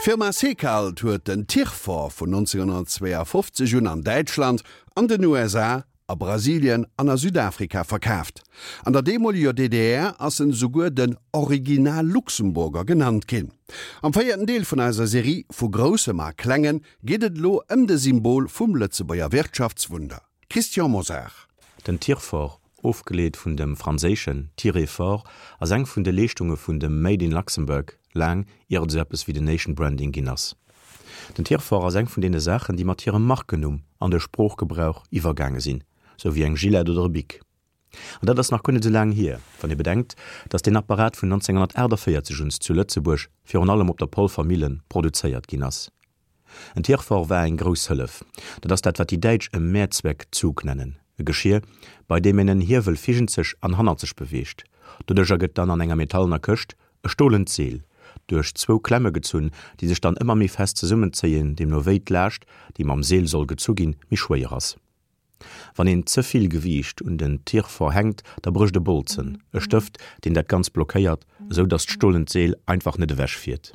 D'Firma Secalt huet den Tirfor vun 1952 un an Däitschland, an den USA, a Brasilien an a Südafrika verkaaft. An der deemoleger DDR ass en esouguer den Original Luxemburger genannt ginn. Am véierten Deel vun eiser Serie Vu Groussem a Klengen geet et elo ëm de Symbol vum Lëtzebuerger Wirtschaftswunder. Christian Mosar. Den Tirfor, ofgeleet vun dem franséischen tirer fort, ass eng vun de Leeschtunge vun dem Made in Luxembourg, laang ier et esou eppes wéi den Nation Branding ginn ass. Den Tirfor ass eng vun deene Saachen, déi mat hirem Markennumm an de Sproochgebrauch iwwergaange sinn, sou wéi eng Gillette oder e Bic. An dat ass nach guer net esou laang hier, wann ee bedenkt, datt deen Apparat vun 1948 un zu Lëtzebuerg, virun allem op der Polfer Millen, produzéiert ginn ass. En Tirfor war eng grouss Hëllef. Dat ass dat, wat déi Däitsch e Mehrzweckzug nennen, e Geschier, bei deem een en Hiewel virgenzeg an hannerzeg beweegt. Doduercher gëtt dann an enger metallener Këscht e stolent Seel duerch zwou Klemme gezunn, déi sech dann ëmmer méi fest zesummenzéien, deemno wéi d'Laascht, déi mam Seel soll gezu ginn, méi schwéier ass. Wann een ze vill Gewiicht un den Tirfor hänkt, da brécht e Bolzen, e Stëft, deen dat Ganzt blockéiert, esou datt d'stolent Seel einfach net ewech fiert.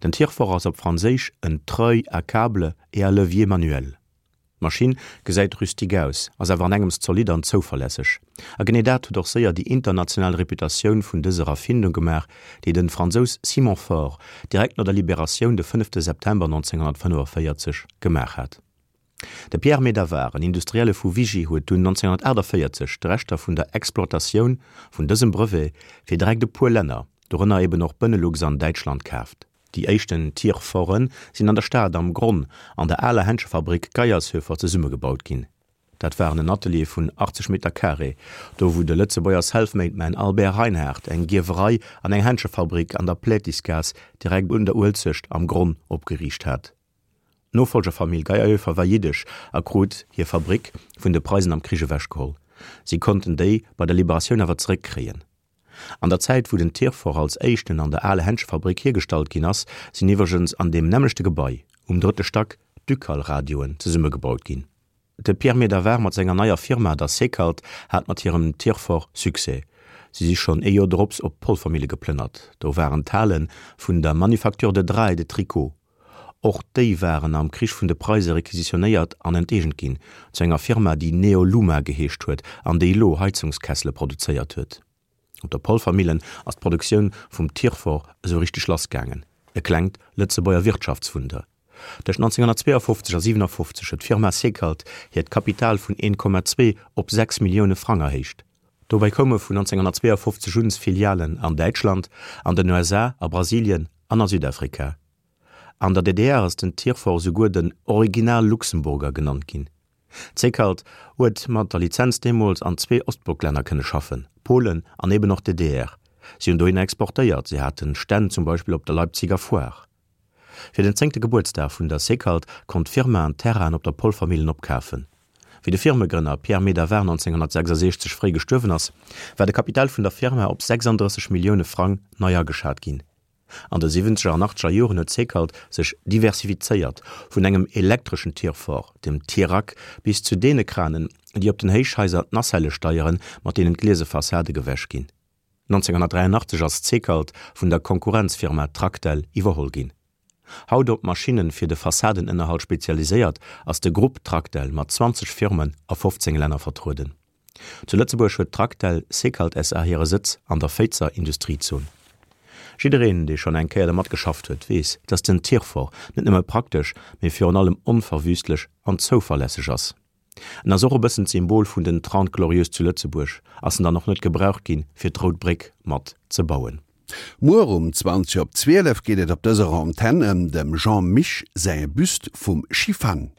Den Tirfor ass op Franséisch en treuil à câble et à levier manuel. D'Maschinn gesäit rustique aus, ass awer an engems zolidd an zouverlässeg. A genee dat huet och séier déi international Reputatioun vun dëser Erfindung gemaach, déi den Fransous Simon Faure direkt no der Liberatioun de fënnefte September 1945 gemaach hat. De Pierre Medavard, en Industrielle vu Vigy, huet dunn 1948 d'Rechter vun der Exploitatioun vun dësem Brevet fir direkt e puer Länner, dorënner eben och Benelux an Däitschland, kaaft. Déi éischten Tirforë sinn an der Stad am Gronn an der aler Händschefabrick Geiershöfer zesummegebaut ginn. Dat waren en Atelier vun 80 Meter carré, do wou de Lëtzebuerger Selfmade-Man Albert Reinhardt eng Gierwerei an eng Händschefabrick an der Plätisgaass direkt un der Uelzecht am Gronn opgeriicht hat. D'Nofollgerfamill Geyerhöfer war jiddesch a krut hir Fabrick vun de Preisen am Krich ewechgeholl. Si konnten déi bei der Liberatioun awer zeréckkréien. An der Zäit wou den Tirfor als éischten an der ale Händschefabrick hiergestallt ginn ass, sinn iwwregens an deem nämmlechte Gebai, um drëtte Stack, d'Ducal-Radioen zesummegebaut ginn. De Pierre Medavard mat senger neier Firma, der Secalt, hat mat hirem Tirfor Succès. Si si schonn ee Joer drops op d'Polfermille geplënnert. Do waren d'Hale vun der Manufacture de Draps et de Tricots. Och déi waren am Krich vun de Preise requisitionéiert an enteegent ginn, zu enger Firma, déi Neoluma geheescht huet an déi elo Heizungskessele produzéiert huet. Op der Polfermillen ass d'Produktioun vum Tirfor esou richteg lassgaangen, e klengt Lëtzebuerger Wirtschaftswunder. Tëscht 1952 a 57 huet d'Firma Secalt hiert Kapital vun 1,2 op 6 Millioune Frang erhéicht. Dobäi koume vun 1952 un Filialen an Däitschland, an den USA, a Brasilien an a Südafrika. An der DDR ass den Tirfor souguer den Original Luxemburger genannt ginn. D'Secalt huet mat der Lizenz deemools an zwee Ostblocklänner kënne schaffen, Polen an eben och d'DDR. Si hunn dohinner exportéiert, si haten Stänn zum Beispill op der Leipziger Foire. Fir den zéngte Gebuertsdag vun der Secalt konnt d'Firma en Terrain op der Polvermillen opkafen. Wéi de Firmegrënner Pierre Medavard 1966 fréi gestuerwen ass, war de Kapital vun der Firma op 36 Millioune Frang nei ageschat ginn. An de siwwenzeger an achtzeger Joren huet Secalt sech diversifizéiert, vun engem elektreschen Tirfor, dem Tirac, bis zu deene Kranen, déi op den Héichhaiser d'Nacellë steieren, mat deenen d'gliese Fassade gewäsch ginn. 1983 ass Secalt vun der Konkurrenzfirma Tractel iwwerholl ginn. Haut op Maschinne fir de Fassadenënnerhalt spezialiséiert, ass de Grupp Tractel mat 20 Firmen a 15 Länner vertrueden. Zu Lëtzebuerg huet d'Tractel Secalt SA hire Sëtz an der Féizer Industriezon. Jiddereen, dee schonn eng Kéier dermat geschafft huet, weess, dass den Tirfor net nëmme praktesch, mee virun allem onverwüstlech an zouverlässeg ass. En ass och e bëssen d'Symbol vun den Trente Glorieuses zu Lëtzebuerg, ass en dann och net gebraucht ginn, fir d'Rout Bréck mat ze bauen. Muer um 20 op 12 geet et op dëser Antenn ëm dem Jean Mich säi Büst vum Schifang.